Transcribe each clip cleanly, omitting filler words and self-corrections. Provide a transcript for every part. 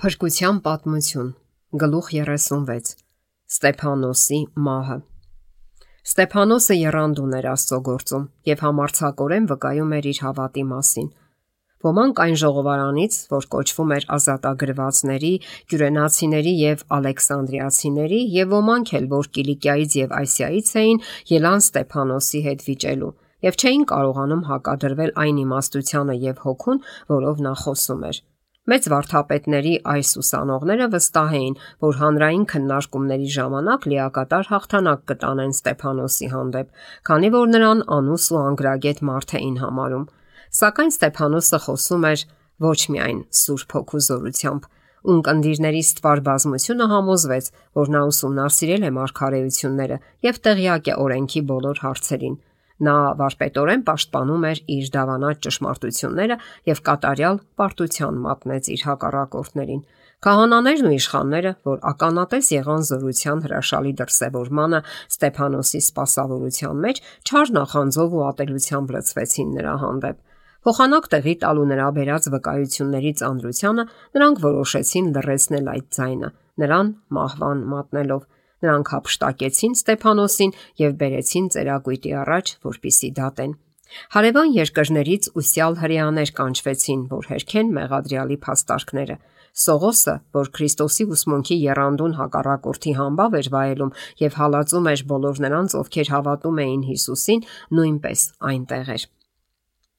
Փրկության պատմություն, գլուխ 36, Ստեփանոսի մահը։ Ստեփանոսը եռանդուն էր Աստծո գործում եւ համարձակորեն վկայում էր իր հավատի մասին։ Ոմանք այն ժողովարանից, որ կոչվում էր ազատագրվածների, կյուրենացիների եւ ալեքսանդրիացիների, եւ ոմանք էլ, որ Կիլիկիայից եւ Ասիայից էին, ելան Ստեփանոսի հետ վիճելու եւ չէին կարողանում հակադրվել այն իմաստությանը եւ հոգուն, որով նա խոսում էր։ Մեծ վարդապետների այս ուսանողները վստահ էին, որ հանրային քննարկումների ժամանակ լիակատար հաղթանակ կտանեն Ստեփանոսի հանդեպ, քանի որ նրան անուս ու անգրագետ մարդ էին համարում։ Սակայն Ստեփանոսը խոսում էր ոչ միայն Սուրբ Հոգու զորությամբ, ունկնդիրների ստվար բազմությունը համոզվեց, որ նա ուսումնասիրել է մարգարեությունները եւ տեղյակ է օրենքի բոլոր հարցերին։ Նա վարպետորեն պաշտպանում էր իր դավանած ճշմարտությունները եւ կատարյալ պարտության մատնեց իր հակառակորդներին։ Քահանաներն ու իշխանները, որ ականատես եղան զորության հրաշալի դրսևորմանը Ստեփանոսի սպասավորության մեջ, չար նախանձով ու ատելությամբ լցվեցին նրա հանդեպ։ Փոխանակ տեղի տալու նրա բերած վկայությունների ծանրությանը նրանք որոշեցին լռեցնել այդ ձայնը, նրան մահվան մատնելով։ Նրանք հափշտակեցին Ստեփանոսին եւ բերեցին ծերակույտի առաջ, որպիսի դատեն։ Հարևան երկրներից ուսյալ հրեաներ կանչվեցին, որ հերքեն մեղադրյալի փաստարկները։ Սողոսը, որ Քրիստոսի ուսմունքի եռանդուն հակառակորդի համբավ էր վայելում եւ հալածում էր բոլոր նրանց, ովքեր հավատում էին Հիսուսին, նույնպես այնտեղ էր։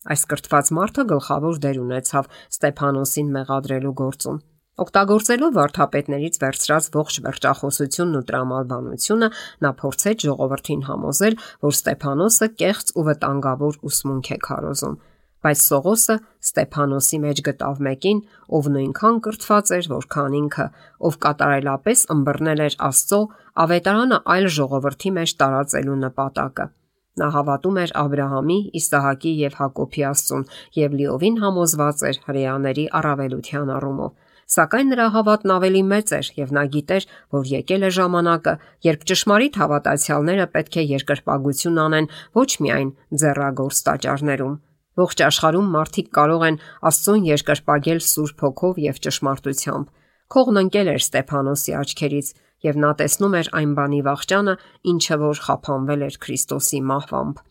Այս կրթված մարդը գլխավոր դեր ունեցավ Ստեփանոսին մեղադրելու գործում։ Օգտագործելով վարդապետներից վերցրած ողջ վերջախոսությունն ու տրամաբանությունը, նա փորձեց ժողովրդին համոզել, որ Ստեփանոսը կեղծ ու վտանգավոր ուսմունք է քարոզում։ Բայց Սողոսը Ստեփանոսի մեջ գտավ մեկին, ով նույնքան կրթված էր, որքան ինքը, ով կատարելապես ըմբռնել էր Աստծո ավետարանը այլ ժողովրդի մեջ տարածելու նպատակը։ Նա հավատում էր Աբրահամի, Իսահակի եւ Հակոբի Աստծուն եւ լիովին համոզված էր հրեաների առավելության առումով։ Սակայն նրա հավատն ավելի մեծ էր եւ նա գիտեր, որ եկել է ժամանակը, երբ ճշմարիտ հավատացյալները պետք է երկրպագություն անեն ոչ միայն ձեռագործ տաճարներում։ Ողջ աշխարհում մարդիկ կարող են Աստծուն երկրպագել Սուրբ Հոգով եւ ճշմարտությամբ։ Քողն ընկել էր Ստեփանոսի աչքերից եւ նա տեսնում էր այն բանի վախճանը, ինչը որ խափանվել էր Քրիստոսի մահվամբ։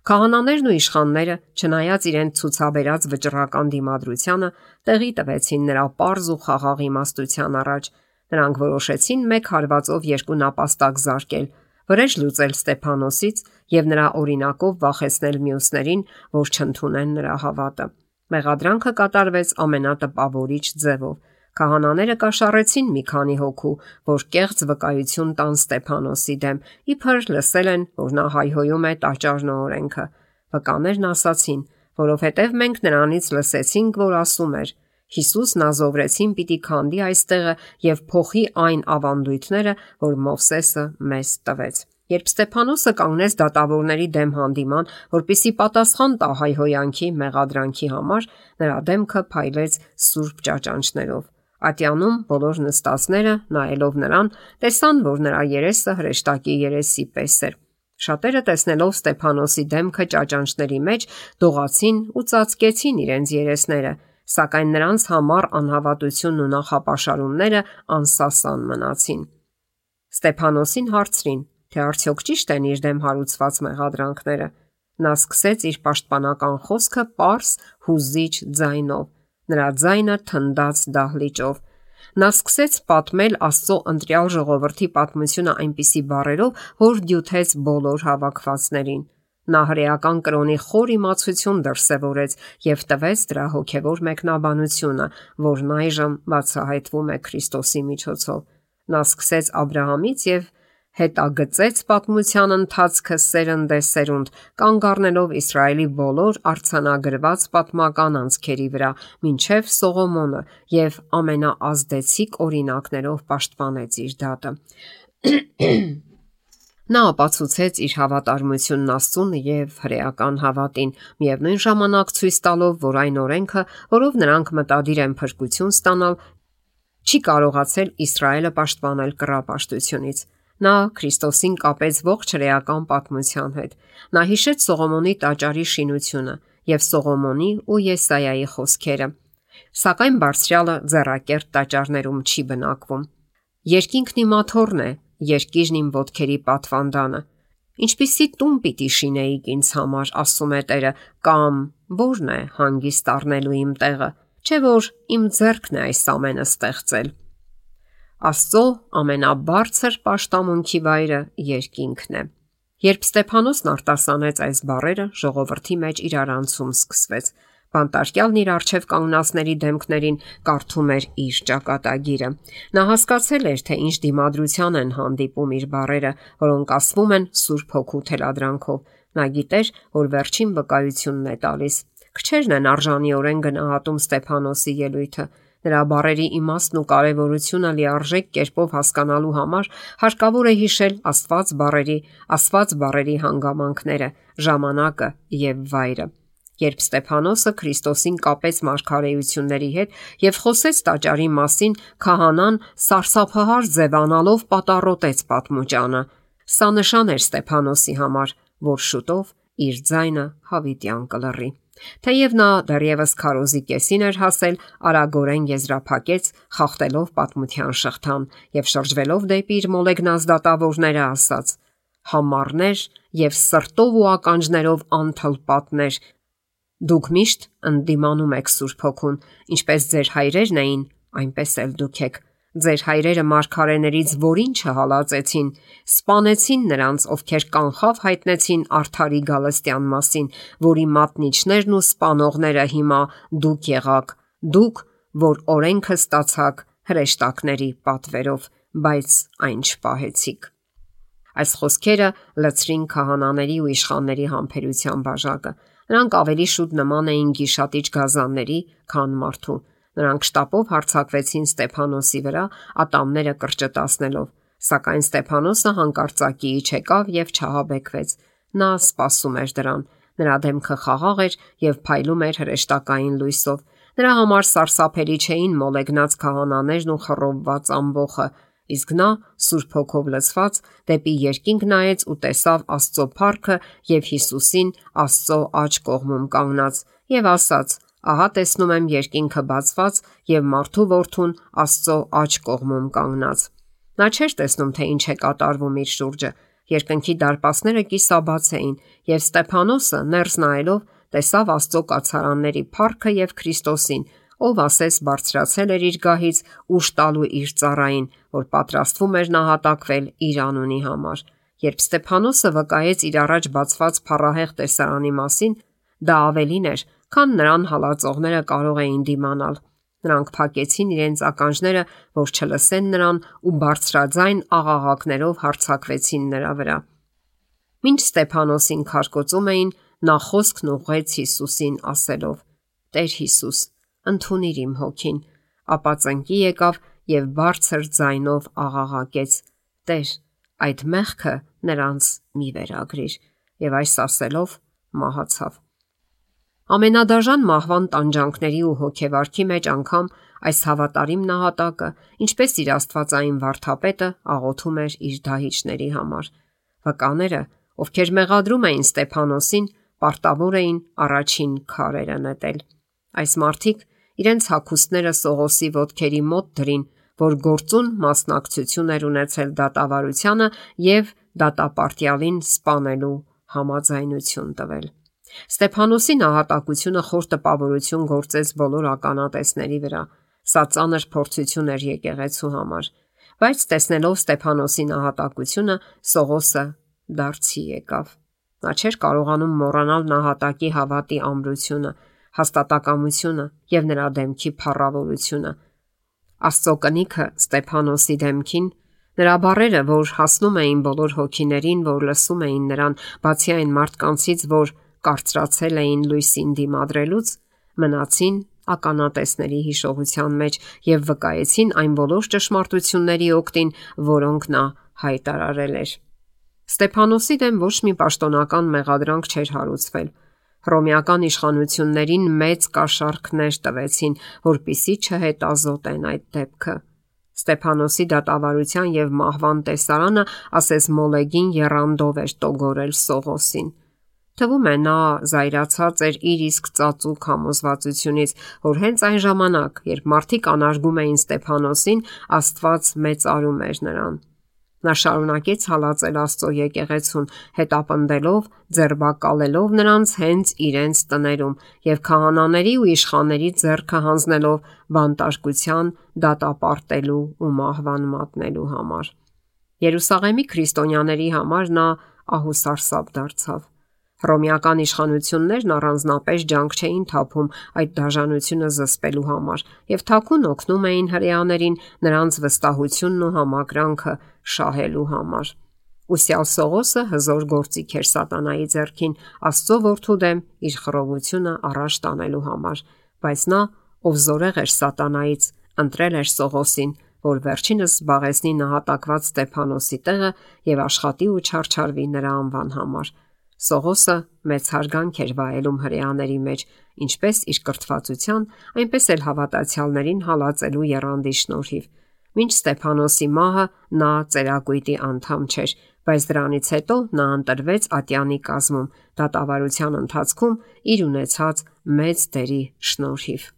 Քահանաներն ու իշխանները, չնայած իրենց ցուցաբերած վճռական դիմադրությանը, տեղի տվեցին նրա պարզ ու խաղաղ իմաստության առաջ։ Նրանք որոշեցին մեկ հարվածով երկու նապաստակ զարկել, վրեժ լուծել Ստեփանոսից եւ նրա օրինակով վախեցնել մյուսներին, որ չընդունեն նրա հավատը։ Մեղադրանքը կատարվեց ամենատպավորիչ ձևով։ Քահանաները կաշառեցին մի քանի հոգու, որ կեղծ վկայություն տան Ստեփանոսի դեմ, իբր լսել են, որ նա հայհոյում է տաճարն ու օրենքը։ Վկաներն ասացին, որովհետև մենք նրանից լսեցինք, որ ասում էր. Հիսուսն ազովրեցին պիտի քանդի այստեղը եւ փոխի այն ավանդույթները, որ Մովսեսը մեզ տվեց։ Երբ Ստեփանոսը կանգնեց դատավորների դեմ հանդիման, որպիսի պատասխան տա հայհոյանքի մեղադրանքի համար, նրա դեմքը փայլեց սուրբ ճաճանճներով։ Ատյանում բոլոր նստածները, նայելով նրան, տեսան, որ նրա երեսը հրեշտակի երեսի պես էր։ Շատերը տեսնելով Ստեփանոսի դեմքը ճաճանճների մեջ, դողացին ու ծածկեցին իրենց երեսները, սակայն նրանց համար անհավատությունն ու նախապաշարումները անսասան մնացին։ Ստեփանոսին հարցրին, թե արդյոք ճիշտ են իր դեմ հարուցված մեղադրանքները։ Նա սկսեց իր պաշտպանական խոսքը պարզ, հուզիչ ձայնով։ Նրա ձայնը թնդաց դահլիճով։ Նա սկսեց պատմել Աստծո ընտրյալ ժողովրդի պատմությունը այնպիսի բառերով, որ դյութեց բոլոր հավաքվածներին։ Նա հրեական կրոնի խոր իմացություն դրսևորեց եւ տվեց դրա հոգեվոր մեկնաբանությունը, որն այժմ բացահայտվում է Քրիստոսի միջոցով։ Նա սկսեց Աբրահամից եւ հետագծեց պատմության ընթացքը սերնդեսերունդ, կանգ առնելով Իսրայելի բոլոր արձանագրված պատմական անցքերի վրա, մինչև Սողոմոնը եւ ամենաազդեցիկ օրինակներով պաշտպանեց իր դատը։ Նա ապացուցեց իր հավատարմությունն Աստծուն եւ հրեական հավատին, միևնույն ժամանակ ցույց տալով, որ այն օրենքը, որով նրանք մտադիր են փրկություն ստանալ, չի կարողացել Իսրայելը պաշտպանել կռապաշտությունից։ Նա Քրիստոսին կապեց ողջ հրեական պատմության հետ։ Նա հիշեց Սողոմոնի տաճարի շինությունը եւ Սողոմոնի ու Եսայայի խոսքերը։ Սակայն բարձրյալը ձեռակերտ տաճարներում չի բնակվում։ Երկինքն իմ աթոռն է, երկիրն իմ ոտքերի պատվանդանը։ Ինչպիսի տուն պիտի շինեիք ինձ համար, ասում է Տերը, կամ որն է հանգիստ առնելու իմ տեղը, չէ որ իմ ձեռքն է այս ամենը ստեղծել։ Աստծո ամենաբարձր պաշտամունքի վայրը երկինքն է։ Երբ Ստեփանոսն արտասանեց այս բառերը, ժողովրդի մեջ իրարանցում սկսվեց։ Բանտարկյալն իր առջև կանգնածների դեմքներին կարդում էր իր ճակատագիրը։ Նա հասկացել էր, թե ինչ դիմադրության են հանդիպում իր բառերը, որոնք ասվում են Սուրբ Հոգու թելադրանքով։ Նա գիտեր, որ վերջին վկայությունն է տալիս։ Քչերն են արժանիորեն գնահատում Ստեփանոսի ելույթը։ Նրա բառերի իմաստն ու կարևորությունը լիարժեք կերպով հասկանալու համար հարկավոր է հիշել Աստված բառերի հանգամանքները, ժամանակը եւ վայրը։ Երբ Ստեփանոսը Քրիստոսին կապեց մարգարեությունների հետ եւ խոսեց տաճարի մասին, քահանան սարսափահար ձևանալով պատառոտեց պատմուճանը։ Սա նշան էր Ստեփանոսի համար, որ շուտով իր ձայնը հավիտյան կլռի։ Թեև նա դեռևս քարոզի կեսին էր հասել, արագորեն եզրափակեց, խախտելով պատմության շղթան եւ շրջվելով դեպի իր մոլեգնած դատավորները ասաց. «Համառներ եւ սրտով ու ականջներով անթլպատներ, դուք միշտ ընդդիմանում եք Սուրբ Հոգուն, ինչպես ձեր հայրերն էին, այնպես էլ դուք եք։ Ձեր հայրերը մարգարեներից որին չհալածեցին, սպանեցին նրանց, ովքեր կանխավ հայտնեցին արդարի գալստյան մասին, որի մատնիչներն ու սպանողները հիմա դուք եղաք, դուք, որ օրենքը ստացաք հրեշտակների պատվերով, բայց այն չպահեցիք»։ Այս խոսքերը լցրին քահանաների ու իշխանների համբերության բաժակը։ Նրանք ավելի շուտ նման էին գիշատիչ գազանների, քան մարդու։ Նրանք շտապով հարձակվեցին Ստեփանոսի վրա, ատամները կրճտացնելով, սակայն Ստեփանոսը հանկարծակիի չեկավ եւ չհաբեկվեց։ Նա սպասում էր դրան։ Նրա դեմքը խաղաղ էր եւ փայլում էր հրեշտակային լույսով։ Նրա համար սարսափելի չէին մոլեգնած քահանաներն ու խռովված ամբոխը, իսկ նա, Սուրբ Հոգով լցված, դեպի երկինք նայեց ու տեսավ Աստծո փառքը եւ Հիսուսին Աստծո աջ կողմում կանգնած եւ ասաց. «Ահա տեսնում եմ երկինքը բացված եւ մարդու որդուն Աստծո աջ կողմում կանգնած»։ Նա չէր տեսնում, թե ինչ է կատարվում իր շուրջը։ Երկնքի դարպասները կիսաբաց էին եւ Ստեփանոսը ներս նայելով տեսավ Աստծո կացարանների փառքը եւ Քրիստոսին, ով ասես բարձրացել էր իր գահից ուժ տալու իր ծառային, որ պատրաստվում էր նահատակվել իր անունի համար։ Երբ Ստեփանոսը վկայեց իր առաջ բացված փառահեղ տեսարանի մասին, դա ավելին էր, քան նրան հալածողները կարող էին դիմանալ։ Նրանք փակեցին իրենց ականջները, որ չլսեն նրան ու բարձրաձայն աղաղակներով հարձակվեցին նրա վրա։ Մինչ Ստեփանոսին քարկոծում էին, նա խոսքն ուղղեց Հիսուսին ասելով. «Տեր Հիսուս, ընդունիր իմ հոգին»։ Ապա ծնկի եկավ եւ բարձր ձայնով աղաղակեց. «Տեր, այդ մեղքը նրանց մի վերագրիր»։ Եվ այս ասելով մահացավ։ Ամենադաժան մահվան տանջանքների ու հոգեվարքի մեջ անգամ այս հավատարիմ նահատակը, ինչպես իր աստվածային վարդապետը, աղոթում էր իր դահիճների համար։ Վկաները, ովքեր մեղադրում էին Ստեփանոսին, պարտավոր էին առաջին քարերը նետել։ Այս մարդիկ իրենց հագուստները Սողոսի ոտքերի մոտ դրին, որ գործուն մասնակցություն էր ունեցել դատավարությանը եւ դատապարտյալին սպանելու համաձայնություն տվել։ Ստեփանոսի նահատակությունը խոր տպավորություն գործեց բոլոր ականատեսների վրա։ Սա ծանր փորձություն էր եկեղեցու համար։ Բայց տեսնելով Ստեփանոսի նահատակությունը, Սողոսը դարձի եկավ։ Նա չէր կարողանում մոռանալ նահատակի հավատի ամրությունը, հաստատակամությունը եւ նրա դեմքի փառավորությունը։ Աստծո կնիքը Ստեփանոսի դեմքին, նրա բառերը, որ հասնում էին բոլոր հոգիներին, որ լսում էին նրան, բացի այն մարդկանցից, որ կարծրացել էին լույսին դիմադրելուց, մնացին ականատեսների հիշողության մեջ եւ վկայեցին այն բոլոր ճշմարտությունների օգտին, որոնք նա հայտարարել էր։ Ստեփանոսի դեմ ոչ մի պաշտոնական մեղադրանք չէր հարուցվել։ Հռոմեական իշխանություններին մեծ կաշառքներ տվեցին, որպիսի չհետազոտեն այդ դեպքը։ Ստեփանոսի դատավարության եւ մահվան տեսարանը ասես մոլեգին եռանդով էր տոգորել Սողոսին։ Թվում է նա զայրացած էր իր իսկ ծածուկ համոզվածությունից, որ հենց այն ժամանակ, երբ մարդիկ անարգում էին Ստեփանոսին, Աստված մեծարում էր նրան։ Նա շարունակեց հալածել Աստծո եկեղեցուն, հետապնդելով, ձերբակալելով նրանց հենց իրենց տներում եւ քահանաների ու իշխանների ձեռքը հանձնելով բանտարկության, դատապարտելու ու մահվան մատնելու համար։ Երուսաղեմի քրիստոնյաների համար նա ահուսարսափ դարձավ։ Հռոմեական իշխանություններն առանձնապես ջանք չէին թափում այդ դաժանությունը զսպելու համար եւ թաքուն օգնում էին հրեաներին նրանց վստահությունն ու համակրանքը շահելու համար։ Ուսյալ Սողոսը հզոր գործիք էր սատանայի ձեռքին Աստծո որդու դեմ իր խռովությունը առաջ տանելու համար, բայց նա, ով զորեղ էր սատանայից, ընտրել էր Սողոսին, որ վերջինս զբաղեցնի նահատակված Ստեփանոսի տեղը եւ աշխատի ու չարչարվի նրա անվան համար։ Սողոսը մեծ հարգանք էր վայելում հրեաների մեջ, ինչպես իր կրթվածության, այնպես էլ հավատացյալներին հալածելու եռանդի շնորհիվ։ Մինչ Ստեփանոսի մահը նա ծերակույտի անդամ չէր, բայց դրանից հետո նա ընտրվեց ատյանի կազմում, դատավարության ընթացքում իր ունեցած մեծ դերի շնորհիվ։